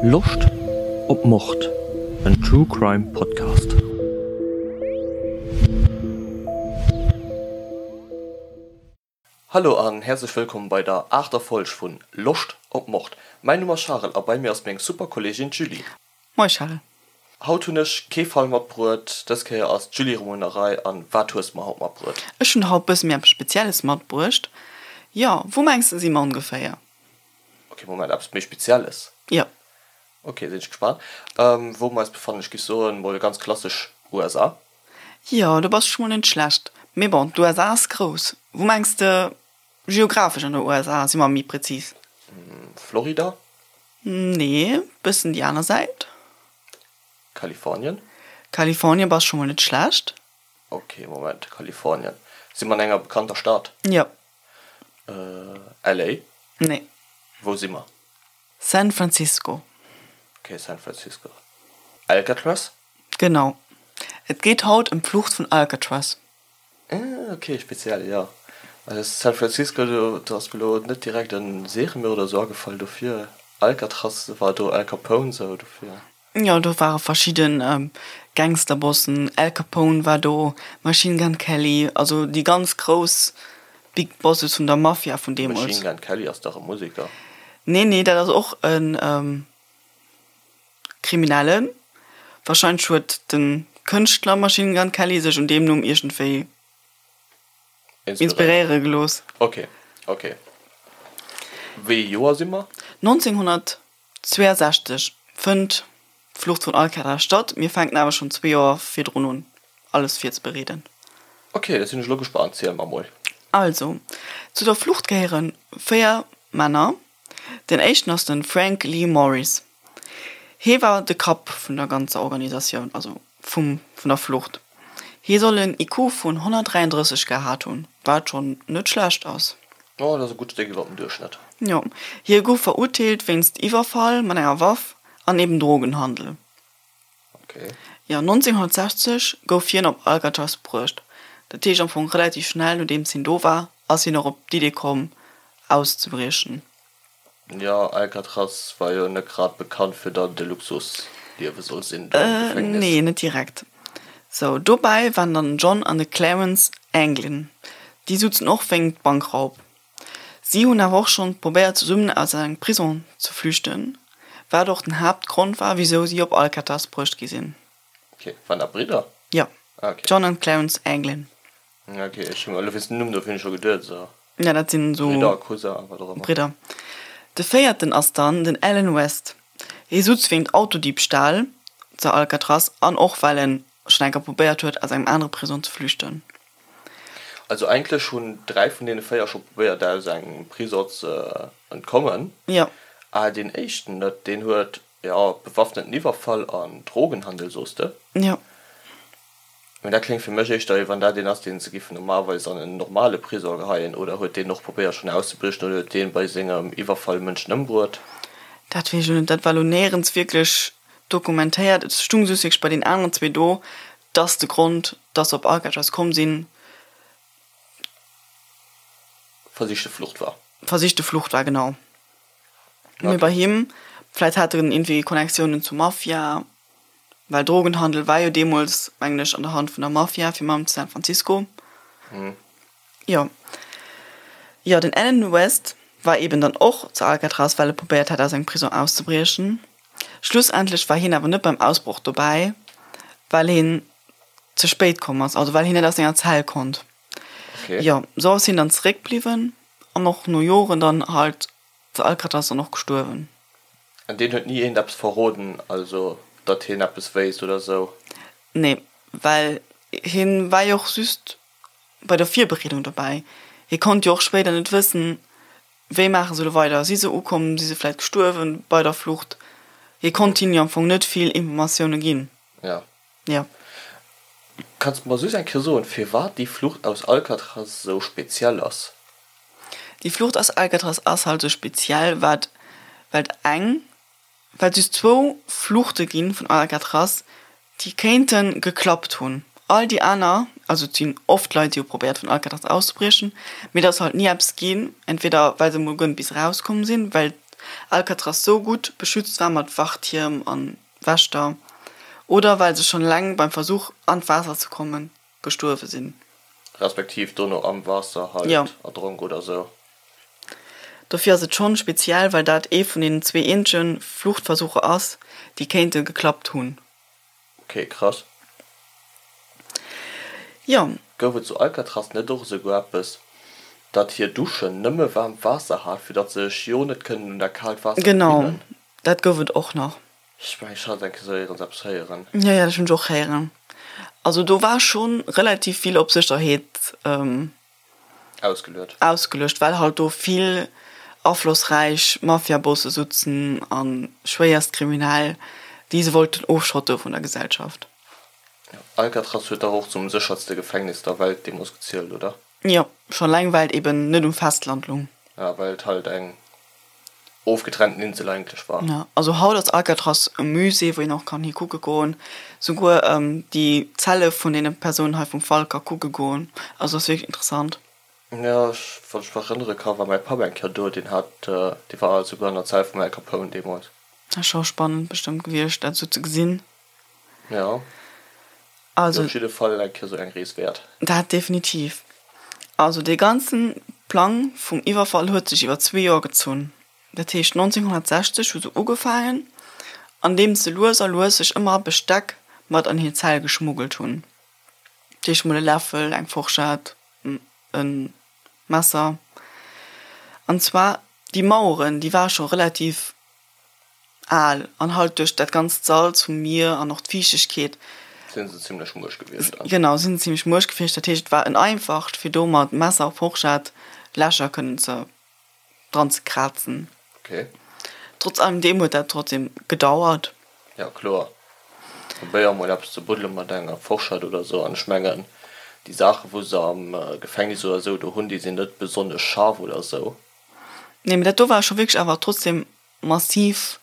Loscht op Mord? En True Crime Podcast. Hallo an häerzlech wëllkomm bei der aachter Folg vun Loscht op Mord. Mäin Numm ass Charel a bei mir ass meng super Kolleegin d'Julie. Moie Charel. Haut hunn ech kee Fall matbruet, dës Kéier ass d'Julie erëm un der Rei. An wat hues de mer haut matbruet? Ech hunn haut bësse méi eppes Spezielles matbruecht. Jo, wou mengs de si mer ongeféier? Ok, Moment, eppes méi Spezielles? Jo. Ok, sinn ech gespaant. Wou mer eis befannen? Ech géif soen, mol ganz klassesch USA. Jo, do bass de scho mol net schlecht. Mee bon, d'USA ass grouss. Wou mengs de geographesch an der USA si mer méi prezis? Florida? Nee, bëssen déi aner Säit. Kalifornien? Kalifornien bass scho mol net schlecht. Ok, Moment, Kalifornien. Si mer an enger bekannter Stad? Jo. LA? Nee. Wou si mer? San Francisco. Ok, San Francisco. Alcatraz? Genau. Et geet haut ëm d'Flucht vun Alcatraz. Ah, ok, speziell, jo. Also San Francisco, do do ass mir lo net direkt en Seriemörder oder sou agefall, dofir Alcatraz war do Al Capone sou, dofir. Jo, do ware verschidden Gangsterbossen, Al Capone war do, Machine Gun Kelly, also déi ganz grouss Big Bosses vun der Mafia vun deemools. Machine Gun Kelly ass dach e Museker? Nee, nee, dat ass och en. Kriminellen. Wahrscheinlech huet de Kënschtler Machine Gun Kelly sech un deem Numm iergendwéi inspiréiere gelooss. Ok, ok. Wéi ee Joer si mer? 1962 fënnt d'Flucht vun Alcatraz statt. Mir fänken awer schonn zwee Joer virdrun un, alles virzebereeden. Ok, da sinn ech elo gespannt. Ziel mer mol. Also, zu der Flucht gehéiere 4 Männer. Den éischten ass de Frank Lee Morris. Hee war de Kapp vun der ganzer Organisatioun, also vum vun der Flucht. Hie soll en IQ vun 133 gehat hunn, wat schonn net schlecht ass. Jo, dat ass e gutt Stéck iwwer dem Duerchschnëtt. Jo. Hie gouf verurteelt wéinst Iwwerfall mat enger Waff an eben Drogenhandel. Okay. Jo, 1960 gouf hien op Alcatraz bruecht. Dat heescht am Fong relativ schnell nodeems hien do war, ass hien och op d'Idee komm auszebriechen. Jo, Alcatraz war jo net grad bekannt fir datt et e Luxusliewe soll sinn do am Gefängnis. Nee, net direkt. Sou, dobäi waren dann den John an de Clarence Anglin. Déi sutzen och wéingt Bankraub. Si hunn awer och schonn probéiert zesummen aus engem Prison ze flüchten, wat och den Haaptgrond war wisou si op Alcatraz bruecht gi sinn. Ok, waren dat Bridder? Jo, John an Clarence Anglin. Ok, ech hunn elo wéinst dem Numm dofir hunn ech scho geduet esou. Ja, dat sinn esou. Bridder, Cousin, wat och ëmmer. Bridder. De véierten ass dann den Alan West. Hie sutz wéint Autodiebstahl zu Alcatraz an och well en schonn eng Kéier probéiert huet aus engem anere Prison ze flüchten. Also eigentlech hunn 3 vun deene 4 scho probéiert aus engem Prisong ze entkommen. Jo. Ah deen éischten net, deen huet jo bewaffneten Iwwerfall an Drogenhandel soos de. Jo. Mee dat kléngt fir mech éischter wéi wann dat een ass deen se giffen normalerweis an en normale Prisong geheien. Oder huet deen och probéiert schonn auszebriechen oder huet deen bei sengem Iwwerfall Mënschen ëmbruet? Dat weess ech lo net, dat war lo néierens wierklech dokumentéiert. Et stung just wierklech bei den aneren zwee do, dass de Grond, dass se op Alcatraz komm sinn, Versichte Flucht war. Versichte Flucht war, genau. Mee bei him, vläit hat en iergendwéi Connectiounen zur Mafia, well Drogenhandel war jo deemools, mengen ech, an der Hand vun der Mafia, fir mam zu San Francisco. Jo. Jo, den Alan West war eben dann och zu Alcatraz, well e probéiert hat, aus engem Prison auszebriechen. Schlussendlech war hien awer net beim Ausbroch dobäi, well hien ze spéit komm ass, also well hien net aus senger Zell konnt. Okay. Jo, sou ass hien dann zeréckbliwwen an och no Joren dann halt zu Alcatraz dann och gestuerwen. An deen huet ni eent eppes verroden, also datt hien eppes wéisst oder sou? Nee, well hien war jo och just bei der Virbereedung dobäi. Hie konnt jo och spéider net wëssen, Wéi maache se elo weider? Si se ukomm? Si se vläit gestuerwen bei der Flucht? Hie konnt hinnen jo am Fong net vill Informatioune ginn. Ja. Ja. Kanns de mer soss eng Kéier soen, firwat déi Flucht aus Alcatraz esou speziell ass? Déi Flucht aus Alcatraz ass halt esou speziell, wat, well et eng Well et just zwou Fluchte gi vun Alcatraz, déi kéinte geklappt hunn. All déi aner, also et sinn oft Leit, déi hu probéiert vun Alcatraz auszebriechen, mee et ass halt ni eppes ginn, entweder well se emol guer net bis erauskomm sinn, well. Alcatraz sou gutt beschützt war mat Wachtierm an Wächter, oder well se schonn eleng beim Versuch an d'Waasser ze kommen gestuerwe sinn. Respektiv dono am Waasser halt erdronk oder sou. Dofir ass et schonn speziell, well dat ee vun den zwee eenzege Fluchtversucher ass, déi kéinte geklappt hunn. Ok, krass. Jo. Gouf et zu Alcatraz net och esouguer eppes, datt hir Duschen nëmme waarmt Waasser hat, fir datt se sech jo net kënnen un dat kaalt Waasser Genau, gewinnen? dat gouf et och nach. Ech mengen, ech hat eng Kéier esou éierens eppes héieren. Jo, jo, dat hunn ech och héieren. Also do war scho relativ vill op Sécherheet Ausgeluet. Ausgeluecht, well halt do vill aflossräich Mafiabosse sutzen a schwéierst Kriminell, déi se wollten ofschotte vun der Gesellschaft. Alcatraz huet dach och zum séchertste Gefängnis der Welt deemools gezielt, oder? Jo, schon eleng well et eben net um Festland lung. Ja, well et halt eng ofgetrennten Insel eigentlech war. Ja, also haut ass Alcatraz e Musée, wou een och kann hi kucke goen. Souguer déi Zelle vun deene Persounen hei vum Fall ka kucke goen. Also ass wierklech interessant. Ja, ech, wann ech mech erënnere ka, war mäi Papp eng Kéier do, deen hat, dee war souguer an der Zell vum Al Capone deemools. Ass scho spannend bestëmmt gewiescht, dat esou ze gesinn. Ja. Also. Op jidde Fall eng Kéier sou eng Rees wäert. Dat definitiv. Also dee ganzen Plang vum Iwwerfall huet sech iwwer zwee Joer gezunn. Dat heescht 1960 hu se ugefaangen, andeems se lues a lues sech ëmmer Besteck mat an hir Zell geschmuggelt hunn. Dat heescht mol e Läffel, eng Forschett, e Messer. An zwar déi Maueren, déi ware scho relativ Al, an halt duerch dat ganzt Salz vum Mier an och d'Fiichtegkeet. Sinn se zimlech muerch gewiescht dann. Genau, sinn se zimlech muerch gewiescht. Dat heescht, et war en einfacht, fir do mat Messer a Forschett Lächer kënnen ze dran ze krazen. Ok. Trotz allem deem huet dat trotzdem gedauert. Ja, kloer. Probéier mol eppes ze buddele mat enger Forschett oder sou. An ech mengen, déi Saachen, wou se am Gefängnis oder sou do hunn, déi sinn net besonnesch scharf oder sou. Nee, mee dat do war scho wierklech awer trotzdem massiv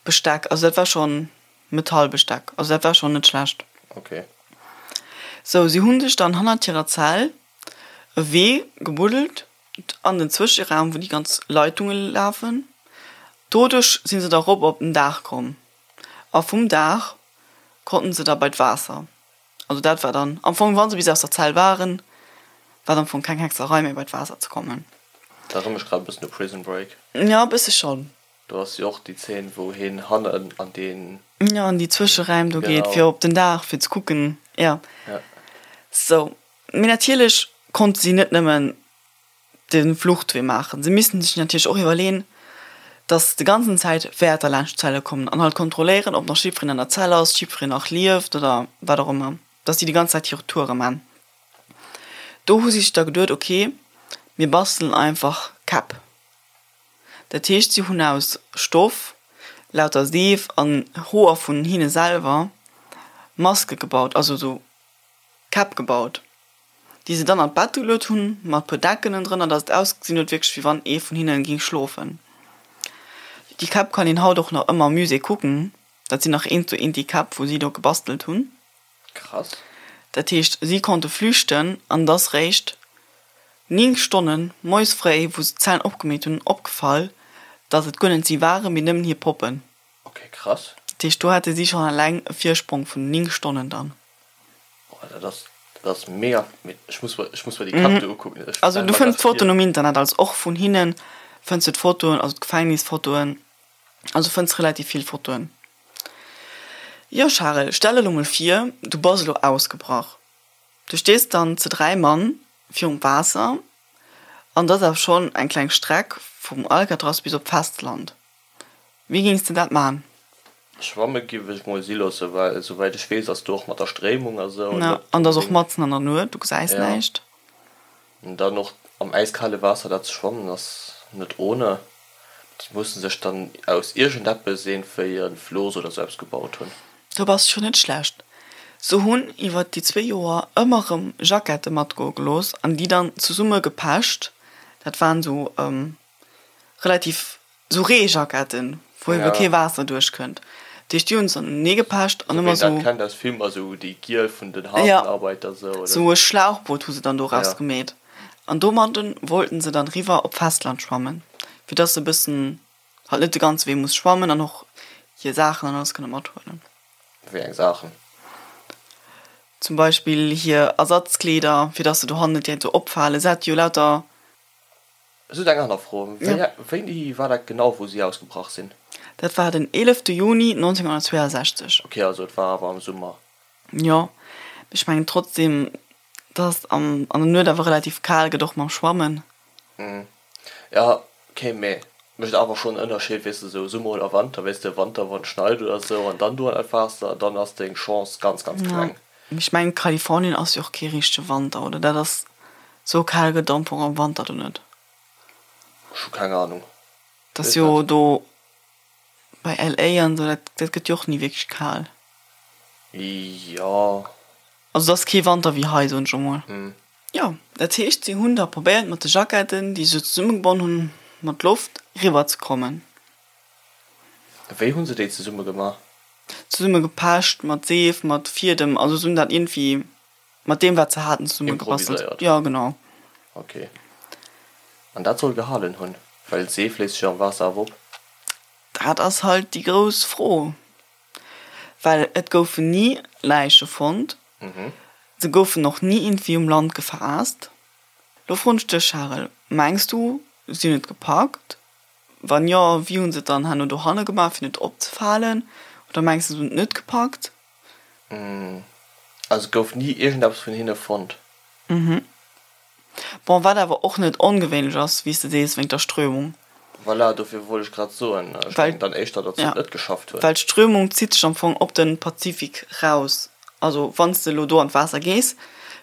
Besteck. Also dat war schon Metallbesteck. Also dat war schon net schlecht. Ok. Sou, si hunn sech dann hannert hirer Zell e Wee gebuddelt an den Zwëscheraum, wou déi ganz Leitunge lafen. Doduerch si se da rop op den Daach komm. A vum Daach konnten se da bei d'Waasser. Also dat war dann am Fong, wa se bis aus der Zell waren, war et am Fong keng Hexerei méi bei d'Waasser ze kommen. Dat erënnert mech grad e bëssen u Prison Break. Jo, e bësse schonn. Do ass jo och déi Zeen, wou hien hannen an deen. Jo, an déi Zwëscheräim do geet, fir op den Daach, fir ze kucken, jo. Ja. Sou, mee natierlech konnte si net nëmmen de Fluchtwee maachen. Se missten sech natierlech och iwwerleen, dass de ganzen Zäit Wäerter laanscht d'Zelle kommen an halt kontrolléieren, ob nach jiddwereen an der Zell ass, jiddwereen nach lieft oder wat och ëmmer, dass si déi ganz Zäit hir Toure man. Do hu si sech da geduet, ok, mir bastelen einfach Käpp. Dat heescht, si hunn aus Stoff, lauter Seef an Hoer vun hinne selwer Maske gebaut, also esou Käpp gebaut. déi se dann an d'Bett geluet hunn, mat puer Decken ënnendrënner, dass et ausgesinn huet wierklech wéi wann ee vun hinnen ging schlofen. Déi Käpp kann een haut och nach ëmmer am Musée kucken, dat sinn nach eent zu eent déi Käpp wou si do gebastelt hunn. Krass. Dat heescht si konnte flüchten an et ass réischt 9 Stonnen moies fréi, wou se d'Zellen opgemeet hunn, opgefall, dass et guer net si waren, mee nëmmen hir Poppen. Ok, krass. Dat heescht do hate si schonn eleng e Virsprong vun 9 Stonnen dann. Boah, dat ass, dat ass mega, mee ech muss mer, ech muss mer déi Käpp do ukucken. Ech Also stelle du mer fënns grad vir. d'Fotoen um Internet, also och vun hinnen fënns du d'Fotoen, also d'Gefängnisfotoen, also fënns relativ vill Fotoen. Jo Charel, stell der lo mol vir, du bass elo ausgebrach. Du stees dann zu 3 Mann virum Waasser an et ass awer schonn eng kleng Streck vum Alcatraz bis op d'Festland. Wéi géings de dat man? Schwamme giff ech mol si loossen, well esouwäit ech weess ass do och mat der Stréimung a sou net An et ass och matzen an der Nuet, du gesäis näischt. An dann och am äiskale Waasser dat ze schwammen ass net ohne. Déi mussen sech dann aus iergendeppes iergendwéi e Flooss oder sou eppes gebaut hunn. Do bass scho net schlecht. Se hunn iwwert déi zwee Joer ëmmer rëm Jackette matgoe gelooss an déi dann zesumme gepecht. Dat waren sou relativ sou Reejacketten, wou ebe kee Waasser duerchkënnt. Dat heescht, déi hunn se dann unenee gepecht an ëmmer sou. Wéi een dat kennt aus Filmer, sou déi giel vun den Hafenarbeiter sou, oder? Sou e Schlauchboot hu se dann doraus gemeet an domadden wollten se dann riwwer op d'Festland schwammen, fir dass se e bëssen. Halt net de ganze Wee muss schwammen an och hir Saachen an alles kënne mathuelen. Wéi eng Saachen? Zum Beispill hir Ersatzkleeder, fir dass se dohannen net direkt sou opfalen. Se hat jo lauter. Just eng aner Fro, Wéini war dat genau, wou si ausgebrach sinn? Dat war den 11 Juni 1962. Ok, also et war awer am Summer. Jo, mee ech mengen trotzdem, dass et an der Nuet awer relativ kal gëtt, och mam Schwammen. Jo, ok, mee mécht awer schonn en Ënnerscheed, weess de, sou Summer oder Wanter, weess de, Wanter wann et schneit oder sou an dann do an dat Waasser, dann ass deng Chance ganz, ganz kleng. Mee ech mengen Kalifornien ass jo och kee richtege Wanter, oder? Dat ass sou kal gëtt am Fong am Wanter do net. Ech hu keng Ahnung. Dat ass jo do bei LA an sou, dat dat gëtt jo och ni wierklech kal. Jo. Also et ass kee Wanter wéi hei, soen ech emol. Jo, dat heescht, si hunn da probéiert mat de Jacketten, déi se zesummegebonn hunn, mat Loft eriwwer ze kommen. Wéi hu se déi zesumme gemaach? Zesumme gepecht, mat Seef, mat Fiedem, also se hunn dat iergendwéi mat deem wat se haten zesumme gebastelt. Improviséiert? Jo, genau. Ok. An dat soll gehalen hunn? Well Seef léist sech am Waasser awer op. Dat ass halt déi grouss Fro. Well et goufen ni Läiche fonnt, se goufen och ni iergendwéi um Land gefaasst. Lo froen ech dech, Charel, mengs du, si hunn et gepackt? Wann jo, wéi hu se et dann herno dohanne gemaach, fir net opzefalen? Oder mengs du, se hunn et net gepackt? Also et gouf ni iergendeppes vun hinne fonnt? Bon, wat awer och net ongewéinlech ass, wéi s de sees, wéinst der Strömung. Voilà, dofir wollt ech grad soen, ech mengen dann éischter, datt se et net geschafft hunn. Well d'Strömung zitt sech am Fong op de Pazifik raus. Also wann s de elo do an d'Waasser gees,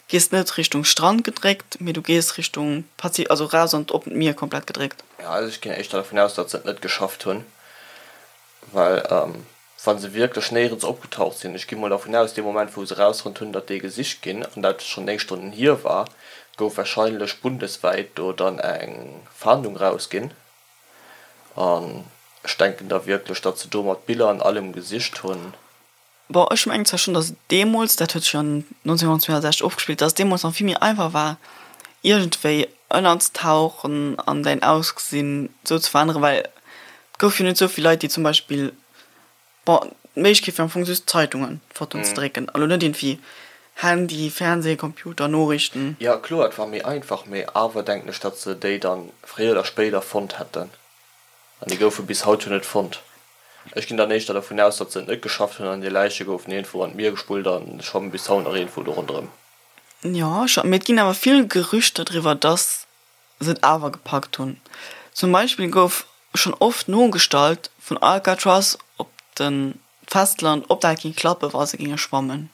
gees de net Richtung Strand gedréckt, mee du gees Richtung Pazifik, also raus an d'oppent Mier komplett gedréckt. Jo, also ech ginn éischter dervun aus, datt se et net geschafft hunn, well Wa se wierklech néierens opgetaucht sinn, ech gi mol dervun aus, dee Moment wou se erausfonnt hunn, datt déi gesicht ginn, an dat schonn 9 Stonnen hier war, gouf warscheinlech bundeswäit do dann eng Fahndung rausginn. An ech denken da wierklech, datt se do mat Biller an allem gesicht hunn. Bon, ech mengen zwar schonn, datt et deemools, dat huet sech jo 1962 ofgespillt, datt et deemools nach vill méi einfach war, iergendwéi ënnerztauchen an däin Ausgesinn esou ze veränneren, well et gouf jo net esou vill Leit, déi zum Beispill Bon, d'Méiglechkeet wier am Fong just Zeitungen, Fotoen ze drécken, a lo net iergendwéi Handy, Fernseh, Computer, Noriichten. Jo kloer, et war méi einfach, mee awer denken ech, datt se déi dann fréier oder spéider fonnt hätten. An déi goufe bis haut jo net fonnt. Ech ginn dann éischter dervun aus, datt se et net geschafft hunn an hir Läiche goufen iergendwou an d'Mier gespullt a schwammen bis haut nach iergendwou do ronderëm. Jo, scho, mee et ginn awer vill Gerüchter driwwer, datt se et awer gepackt hunn. Zum Beispill gouf schonn oft nogestallt vun Alcatraz op de Festland, ob dat géing klappen, wa se géinge schwammen.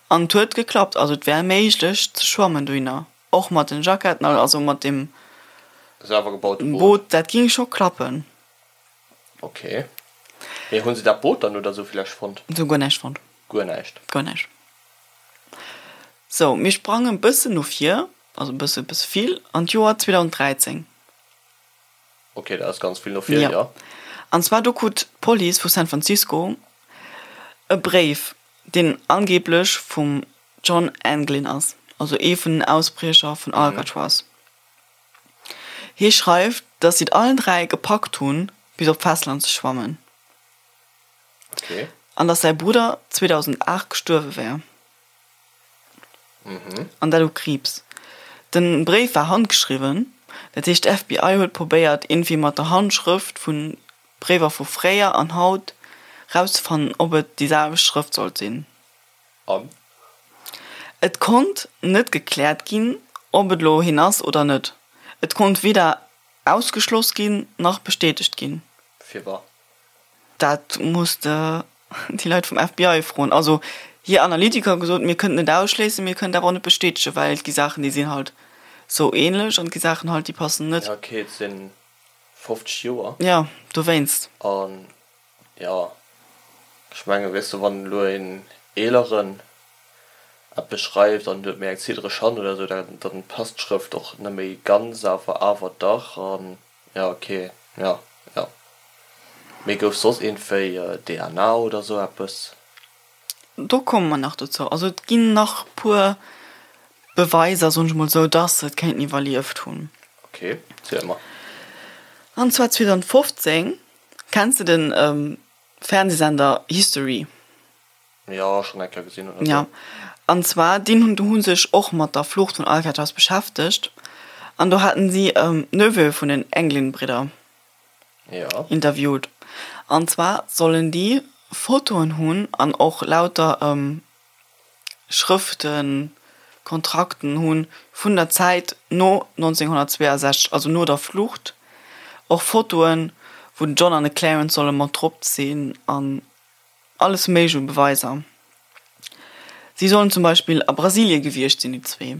An et huet geklappt, also et wär méiglech ze schwammen dohinner, och mat den Jacketten, also mat deem Selwer gebaute Boot. Boot, dat géing scho klappen. Ok. Mee hunn se dat Boot dann oder sou villäicht fonnt? Se hu guer näischt fonnt. Guer näischt? Guer näischt. Sou, mir sprangen e bëssen no vir, also e bësse, e bësse vill, an d'Joer 2013. Ok, dat ass ganz vill no vir, jo. An zwar do krut d'Police vu San Francisco e Bréif, deen angeeblech vum John Anglin ass, also ee vun den Ausbriecher vun Alcatraz. Hie schreift, datt si et allen 3 gepackt hunn, bis op d'Festland ze schwammen. Okay. An datt säi Brudder 2008 gestuerwe wär. An dat u Kriibs. Den Bréif war handgeschriwwen, dat heescht d'FBI huet probéiert iergendwéi mat der Handschrëft vu Bréiwer vu fréier an haut rauszefannen, ob et déi selwecht Schrëft sollt sinn. An? Et konnt net gekläert ginn, ob et elo hien ass oder net. Et konnt weder ausgeschloss ginn, nach bestätegt ginn. Firwat? Dat muss de déi Leit vum FBI froen. Also hir Analytiker hu gesot, mir kënnten et ausschléissen, mir kënnen et awer och net bestätegen, well et gi Saachen, déi sinn halt sou ähnlech an et gi Saachen halt, déi passen net. Ja, okay, et si 50 Joer. Jo, dowéinst. An jo, ech mengen, weess de, wann elo een Eeleren eppes schreift an huet méi eng ziddereg Hand oder esou, dann passt d'Schrëft och net méi ganz, awer awer dach. An Ja ok, ja ja. Mee gouf soss iergendwéi DNA oder sou eppes? Do komme mer nach dozou. Also et ginn nach puer Beweiser, soen ech mol sou, dass se et kéinten iwwerlieft hunn. Ok, ziel mer. An zwar 2015. Kenns de den Fernsehsender History? Jo, schonn eng Kéier gesinn oder sou. Jo, an zwar deen hunn hu sech och mat der Flucht vun Alcatraz beschäftegt an do haten si Neveu vun den Anglin-Bridder interviewt. An zwar sollen déi Fotoen hunn an och lauter Schrëften, Kontrakten hunn vun der Zäit no 1962, also no der Flucht, och Fotoen wou den John an de Clarence solle mat drop sinn an alles méiglech u Beweiser. Si sollen zum Beispill a Brasilie gewiescht sinn, déi zwee.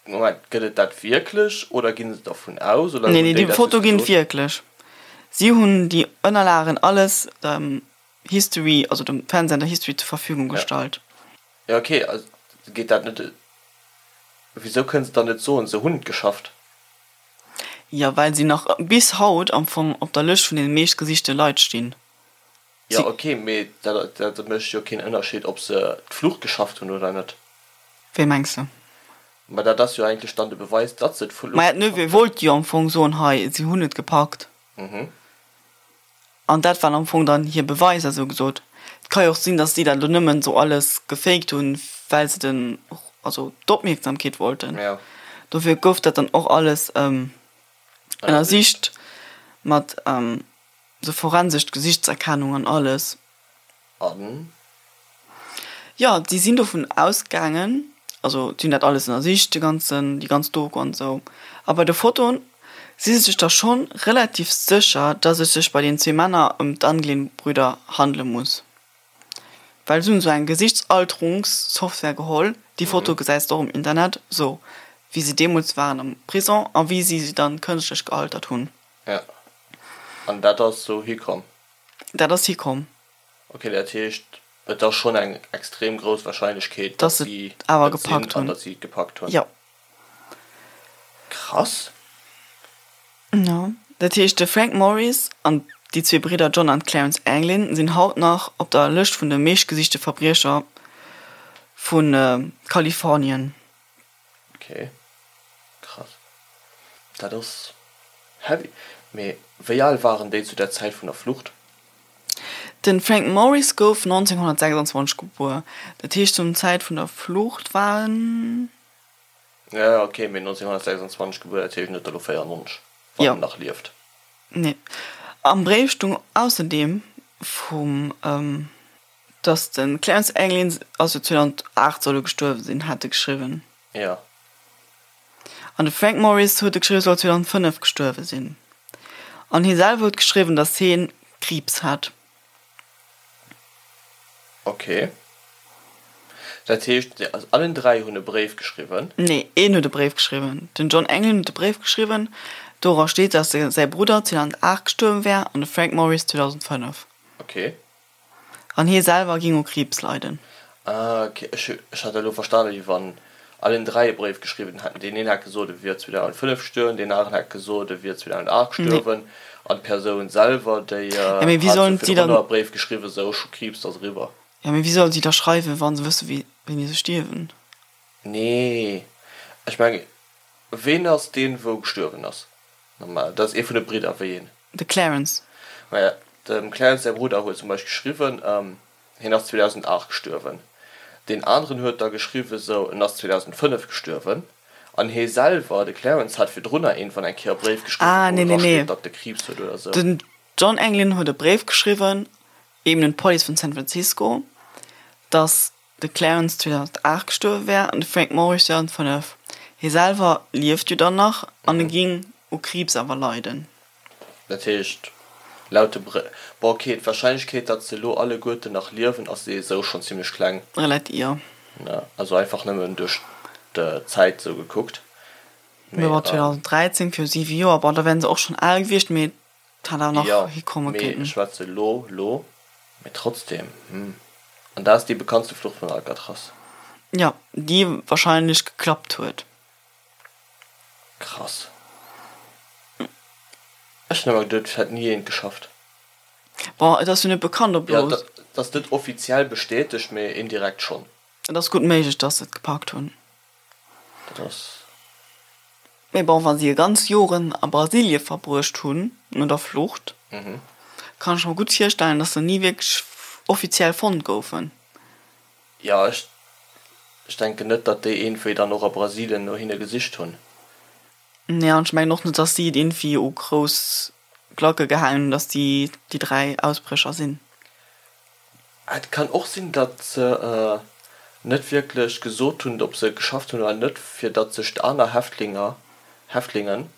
Moment, gëtt et dat wierklech oder ginn se dervun aus oder Nee, hunn nee, déi déi Foto ginn et wierklech. Si hunn déi Ënnerlagen alles dem History, also dem Fernsehsender History zur Verfügung gestallt. Jo, okay, also geet dat net, wisou kënnen se dann net soen, se hunn et geschafft? Jo, well si nach bis haut am Fong op der Lëscht vun deene meeschtgesichte Leit stinn. Jo ok, mee dat mécht jo keen Ënnerscheed ob se d'Flucht geschafft hunn oder net. Wéi mengs de? Ma dat ass jo eigentlech dann de Beweis, datt se d'Flucht Maja, d'Neveu wollt jo am Fong soen, hei, si hunn et gepackt. An dat waren am Fong dann hir Beweiser, sou gesot. Et ka jo och sinn, datt si dat elo nëmmen sou alles gefaked hunn, well se den, also d'Opmierksamkeet wollten. Dofir gouf dat dann och alles ënnersicht mat. Sou forensescht Gesichtserkennung an alles. An? Jo, si sinn dovun ausgaangen, also si hunn dat alles ënnersicht, de ganzen, déi ganz Doku an esou. A bei de Fotoen si se sech da schonn relativ sécher, dass et sech bei den zwee Männer ëm d'Anglin-Brüder handele muss. Well si hunn esou eng Gesichtsalterungssoftware geholl, déi Foto gesäis de och um Internet, esou wéi se deemools waren am Prison a wéi si se dann kënschtlech gealtert hunn. Ja. An dat ass sou hikomm? Dat ass hikomm. Ok, dat heescht, et ass schonn eng extrem grouss Warscheinlechkeet, dass si et awer gepackt hunn an dass si et gepackt hunn. Jo. Krass. Jo. Dat heescht, de Frank Morris an déi zwee Bridder John an Clarence Anglin sinn haut nach op der Lëscht vun de meeschtgesichte Verbriecher vu Kalifornien. Ok, krass. Dat ass heavy. Mee wéi al waren déi zu der Zäit vun der Flucht? Den Frank Morris gouf 1926 gebuer, dat heescht zum Zäit vun der Flucht war en. Jo, ok, mee 1926 gebuer, dat heescht en huet der elo 94, wann en nach lieft. Nee. Am Bréif stung ausserdeem vum. Dass de Clarence Anglin ass jo 2008 soll e gestuerwe sinn, hat e geschriwwen. Jo. An de Frank Morris huet e geschriwwen, soll 2005 gestuerwe sinn. An hie selwer huet geschriwwen, dass hie Kriibs hat. Ok. Dat heescht, also allen 3 hunn e Bréif geschriwwen? Nee, een huet e Bréif geschriwwen. Den John Anglin huet e Bréif geschriwwen, dora steet, dass säi Brudder 2008 gestuerwe wär an de Frank Morris 2005. Ok. An hie selwer ging u Kriibs leiden. Ah ok, ech ech hat elo verstanen wéi wann allen 3 e Bréif geschriwwen hätten. Deen een hätt gesot e wier 2005 gestuerwen, deen aneren hätt gesot e wier 2008 gestuerwen an d'Persoun selwer déi Ja mee wéi hat sollen sou si dann virdrunner e Bréif geschriwwen, sou ech hu Kriibs, dat ass eriwwer. Ja mee wéi sollen si da schreiwen wa se wësse wéi wéini se stierwen? Nee, ech mengen ween ass deen wou gestuerwen ass? Normal, dat ass ee vun de Bridder, wéi een? De Clarence. Maja, dem Clarence säi Brudder huet zum Beispill geschriwwen, hien ass 2008 gestuerwen. Deen aneren huet da geschriwwen, sou, en ass 2005 gestuerwen. An hie selwer, de Clarence, hat virdrunner iergendwann eng Kéier e Bréif geschriwwen, Ah, wou nee, nee, dra steet, nee. datt e Kriibs huet oder sou. Den John Anglin huet e Bréif geschriwwen, eben un d'Police vun San Francisco, datt de Clarence 2008 gestuerwe wär an de Frank Morris 2005. Hie selwer lieft jo dann nach an e ging u Kriibs awer leiden. Dat heescht, laut de Br. Bon, ok, d'Warscheinlechkeet, datt se elo alleguerten nach liewen, ass ee sou schonn zimmlech kleng. Relativ, jo. Ne, also einfach nëmmen duerch d'Zäit sou gekuckt. Mee bon, 2013, viru siwe Joer, bon, da wären se och schonn al gewiescht, mee et hätt awer nach hikomme Jo, mee kéinten. ech schwätze lo, lo. Mee trotzdem, hm. An dat ass déi bekanntste Flucht vun Alcatraz. Jo, déi warscheinlech geklappt huet. Krass. Ech hun emmer geduet et hätt ni eent geschafft. Bon, et ass jo net bekannt ob lo. Jo, et ass net offiziell bestätegt, mee indirekt schonn. Et ass gutt méiglech dass se et gepackt hunn. Dat ass. Mee bon, wa si e ganz Joren a Brasilie verbruecht hunn no der Flucht. Kann ech mer gutt virstellen, dass se ni wierklech offiziell fonnt goufen. Jo, ech ech denken net, datt déi iergendwéi dann och a Brasilien no hinne gesicht hunn. Nee, an ech mengen och net, dass si et iergendwéi u grouss Glacke gehaangen hunn, dass si déi 3 Ausbrécher sinn. Et kann och sinn, datt se net wierklech gesot hunn, ob se et geschafft hunn oder net, fir datt sech d'aner Häftlinger, Häftlingen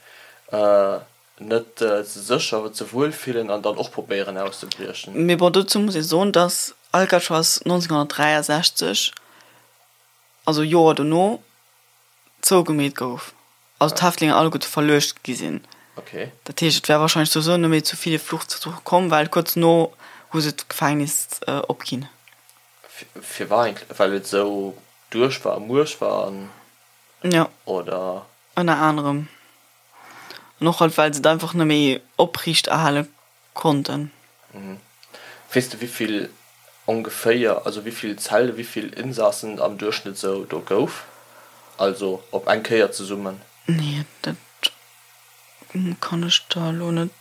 net ze sécher, ze wuel fillen an dann och probéieren auszebriechen. Mee bon, dozou muss ee soen, datt Alcatraz 1963, also Joer dono, zougemeet gouf, also d'Häftlinge alleguerte verluecht gi sinn. Okay. Dat heescht, et wär wahrscheinlech souwisou net méi zu ville Fluchtversuche komm, well kuerz no hu se d'Gefängnis opginn. Firwat eigentlech? Well et esou duerch war a muerch war an, Jo. oder? Ënner anerem. An och halt, well se et einfach net méi opriicht erhale konnten. Weess de wéivill ongeféier, also wéivill Zelle, wéivill Insassen et am Duerchschnëtt sou do gouf? Also op eng Kéier zesummen? Nee, dat kann ech der elo net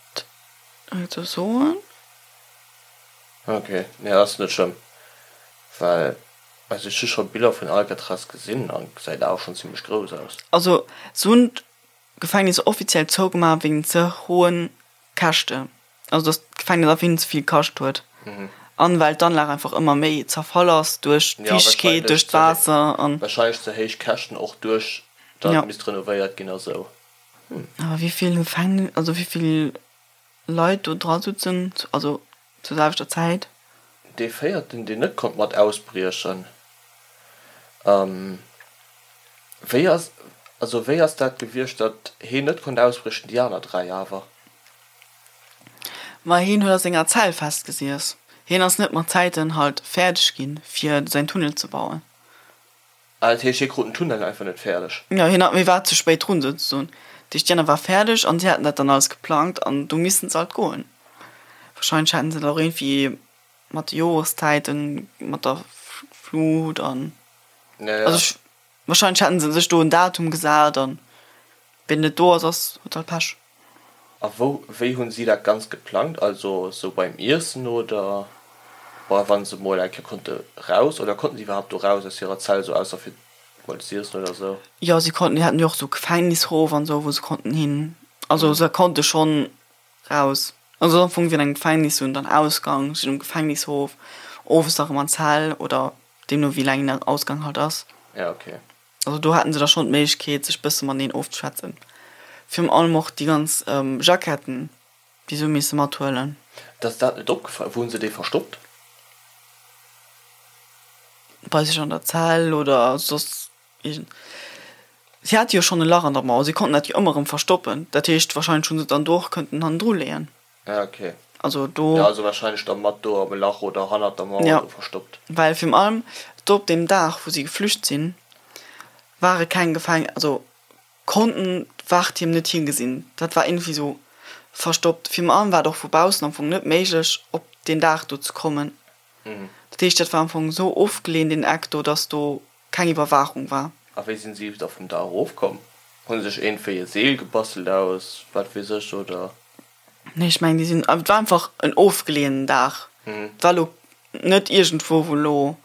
esou soen. Ok, nee ass net schlëmm, well also ech hu scho Biller vun Alcatraz gesinn an gesäit awer schonn zimmlech grouss aus. Also se hunn d'Gefängnis offiziell zougemaach wéinst ze hohen Käschte, also dass d'Gefängnis einfach hinnen ze vill kascht huet an well d'Anlag einfach ëmmer méi zerfall ass duerch d'Fiichtegkeet, duerch d'Waasser an. Wahrscheinlech ze héich Käschten och duerch datt et misst renovéiert ginn a sou. Awer wéi vill Gefängnis, also wéi vill Leit do dra sutzen, also zur selwechter Zäit. Dee véierten, deen net konnt mat ausbriechen, wéi ass, also wéi ass dat gewiescht, datt heen net konnt ausbriechen, déi aner 3 awer? Ma heen huet a senger Zell festgesiess. Heen ass net mat Zäiten halt fäerdeg ginn, fir säin Tunnel ze bauen. Ah, dat heescht, hie krut den Tunnel einfach net fäerdeg? Jo, hien hat, hie war ze spéit drun souzesoen. Dat heescht, déi aner war fäerdeg an si haten dat dann alles geplangt an du missten se halt goen. Wahrscheinlech haten se dat och iergendwéi mat de Joreszäiten, mat der Flut an, also ech, wahrscheinlech haten se sech do en Datum gesat an ween net do ass, ass, huet halt Pech. A wou, wéi hunn si dat Ganzt geplangt? Also sou beim Iessen oder bei wann se mol eng Kéier konnte raus? Oder konnten si iwwerhaapt do raus aus hirer Zell, sou ausser fir mol z'iessen oder sou? Jo, si konnten, déi haten jo och sou Gefängnishof an sou, wou se konnten hin. Also se konnte schonn raus. Also am Fong wéi an engem Gefängnis, se hunn dann Ausgang, sinn um Gefängnishof, owes da rëm an d'Zell oder deemno wéi laang den Ausgang halt ass. Ja, okay. Also do haten se da schonn d'Méiglechkeet sech bësse mateneen ofzeschwätzen. Virun allem och déi ganz Jacketten, déi se hu misse mathuelen. Dass dat net opgefall, wou hunn se déi verstoppt? Bei sech an der Zell oder soss iergend. Si hate jo schonn e Lach an der Mauer, si konnten dat jo ëmmer erëm verstoppen. Dat heescht, warscheinlech hu se et dann do och kënnten hannendru leeën. Ah, okay. Also do. Ja, also wahrscheinlech da mat do am Lach oder hannert der Mauer ja. do verstoppt. Well virun allem do op deem Dag, wou si geflücht sinn, ware keng Gefäng-, also konnten d'Wachtierm net higesinn. Dat war iergendwéi sou verstoppt. Virun allem war et och vu baussen am Fong net méiglech, op deen Daach do ze kommen. Dat heescht, dat war am Fong sou ofgeleeën, deen Eck do, dass do keng Iwwerwaachung war. A wéi sinn si da vum Daach erofkomm? Hu se sech iergendwéi e Seel gebastelt aus wat weess ech, oder? Nee, ech mengen, déi sinn, et war einfach en ofgeleeënen Daach. Et war elo net iergendwou, wou elo,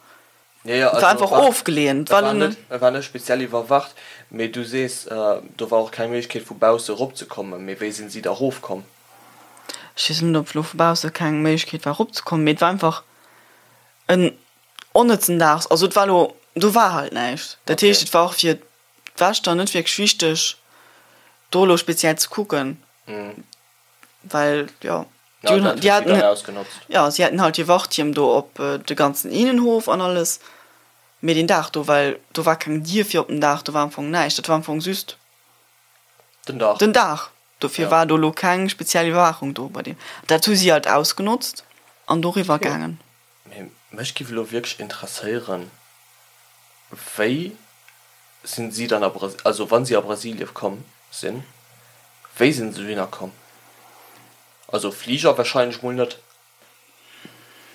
Jo, jo, et war also einfach war, ofgeleeën. Et et war war elo net, net. et war net speziell iwwerwacht, mee du sees, do war och keng Méiglechkeet vu bausse eropzekommen. Mee wéi sinn si da erofkomm? Ech weess net, ob elo vu bausse keng Méiglechkeet war eropzekommen, mee et war einfach en onnëtzen Dag. Also et war elo, do war halt näischt. Dat heescht, et war och fir d'Wächter net wierklech wichteg, do elo speziell ze kucken, well jo, déi hunn, déi haten, jo, si haten halt hir Wachtierm do op de ganzen Innenhof an alles, mee deen Dag do, well do war keng Dier fir op den Daach, do war am Fong näischt, dat war am Fong just Den Daach. Den Daach. Dofir war do elo keng speziell Iwwerwaachung do bei deem. Dat hu si halt ausgenotzt an doriwwer gaangen. Mee mech giff elo wierklech interesséieren, wéi sinn si dann a Brasilien, also wann si a Brasilien komm sinn, wéi sinn se dohinner komm? Also Fliger wahrscheinlech mol net,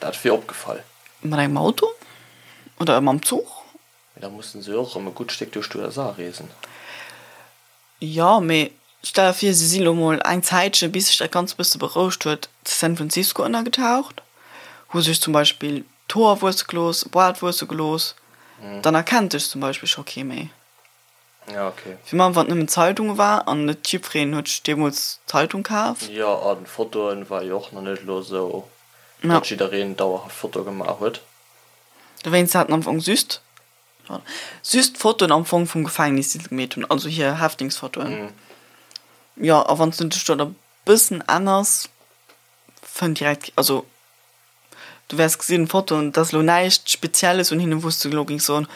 dat wier opgefall. Mat engem Auto oder mam Zuch? Mee da mussen se jo och erëm e gutt Stéck duerch d'USA reesen. Jo, mee. Stell der vir, si si lo mol eng Zäitche, bis sech dat Ganzt e bësse berouegt huet, zu San Francisco ënnergetaucht, hu sech zum Beispill d'Hoer wuesse gelooss, e Boart wuesse gelooss, dann erkennt dech zum Beispill scho kee méi. Ja, okay. Fir mech, wann et nëmmen Zeitunge war an net jiddwereen huet sech deemools d'Zeitung kaf. Jo, a Fotoen war jo och nach net elo esou, datt jiddereen dauerhaft Fotoe gemaach huet. Dowéinst haten am Fong just Just d'Fotoen am Fong vum Gefängnis, déi se gemeet hunn, also hir Häftlingsfotoen. Jo, a wann s du dech do e bëssen änners, fënnt direkt, also du wäers gesinn, d'Fotoen, et ass elo näischt Spezielles un hinnen, wou s du elo géings soen,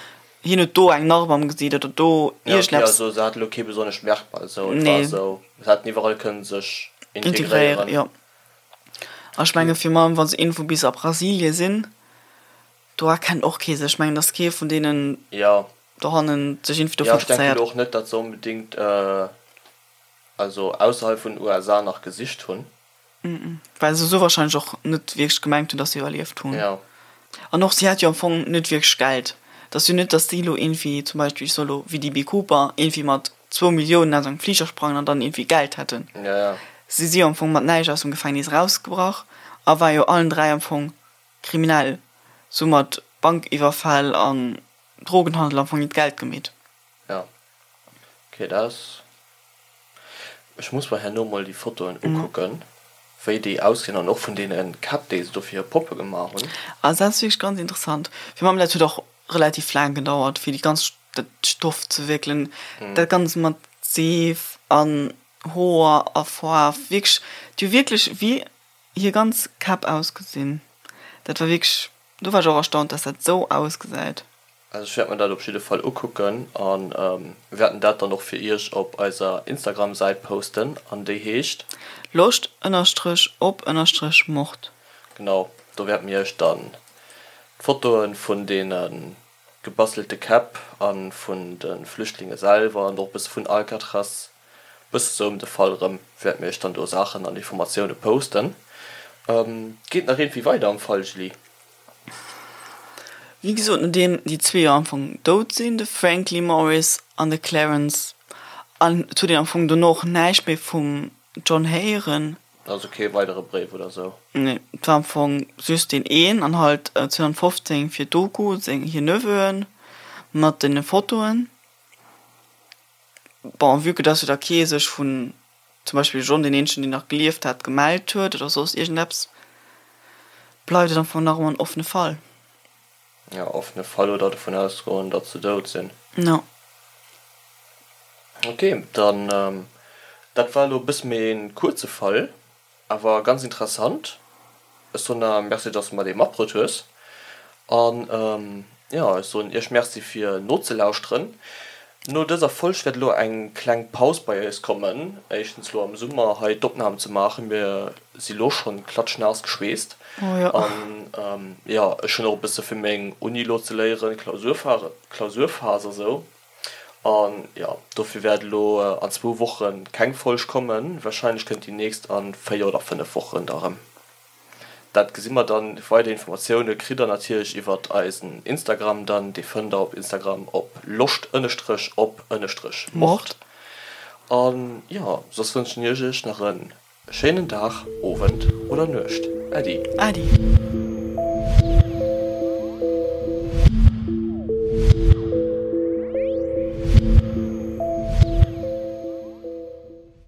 hien huet do eng Narb am Gesiit oder do iergendeppes. Jo, okay, also se haten elo kee besonnescht Merkmal esou, et war esou, se hätten iwwerall kënnen sech integréieren. Integréieren, jo. A ech menge fir meng, wa se iergendwou bis a Brasilie sinn, Do erkennt och kee sech. Ech mengen, dass kee vun deenen dohannen sech iergendwéi dofir interesséiert. Jo, ech denken och net, datt se onbedéngt also ausserhalb vun den USA nach gesicht hunn. Well se esou warscheinlech och net wierklech gemengt hunn, dass se iwwerlieft hunn. An och si hat jo am Fong net wierklech Geld. Et ass jo net, dass si elo iergendwéi zum Beispill, ech soe lo wéi DB Cooper, iergendwéi mat zwou Milliounen aus engem Fliger sprangen an dann iergendwéi Geld hätten. Si si jo am Fong mat näischt aus dem Gefängnis erausgebrach a war jo allen 3 am Fong Kriminell, sou mat Bankiwwerfäll an Drogenhandel am Fong hiert Geld gemeet. Jo, ok, dat ass. Ech muss mer herno mol déi Fotoen ukucken, wéi déi ausgesinn an och vun deene Käpp, déi se do fir hir Poppe gemaach hunn. Also dat ass wierklech ganz interessant. Fir mam, dat huet och relativ laang gedauert, fir déi ganz, dat Stoff ze wéckelen, dat Ganzt mat Seef an Hoer a Faarf, wierklech, déi hu wierklech wéi Hir ganz Käpp ausgesinn. Dat war wierklech, do war ech och erstaunt, dass dat esou ausgesäit. Also ech wäert mer dat op jidde Fall ukucken an wäerten dat dann och fir iech op eiser Instagram Säit posten an déi heescht. Loscht ënnerstrech op ënnerstrech Mord. Genau, do wäerte mir iech dann d'Fotoen vun deene gebastelte Käpp a vun de Flüchtlinge selwer an och e bësse vun Alcatraz Bësse sou ëm de Fall erëm wäerte mir iech dann do Saachen an Informatioune posten. Geet nach iergendwéi weider am Fall, Julie? Wéi gesot, nodeem déi zwee jo am Fong dout sinn, de Frank Lee Morris an de Clarence, an et huet een am Fong dono och näischt méi vum John héieren. Also kee weidere Bréif oder sou? Nee, et war am Fong just deen een an halt 2015 fir d'Doku seng hir Neveuen mat den Fotoen. Bon, vue que dass jo da kee sech vun, zum Beispill John, deen eenzegen deen nach gelieft hat, gemellt huet oder soss iergendeppes, bleift et am Fong nach ëmmer en offene Fall. Jo, offene Fall oder dovun ausgoen, datt se dout sinn. Jo. Ok, dann, dat war elo e bësse méi e kuerze Fall. Awer ganz interessant. Ech soen der Merci dass de mer dee matbruet hues. An jo, ech soen iech Merci fir nozelauschteren. No dëser Folg wäert elo eng kleng Paus bei eis kommen. Éischtens elo am Summer hei d'Opnahm ze maachen, mir si lo schonn klatschnaass geschweesst. An jo, ech hunn och e bësse fir meng Uni elo ze léieren, Klausurphase a sou. An jo, dofir wäert elo an zwou Woche keng Folg kommen. Warscheinlech kënnt déi nächst a 4 oder 5 Wochen da rëm. Dat gesi mer dann. Weider Informatioune kritt der natierlech iwwert eisen Instagram dann. Dee fënnt der op Instagram op loscht ënnestrech op ënnestrech mord. An jo, soss wënschen ech iech nach e schéinen Dag, Owend oder Nuecht. Äddi. Äddi.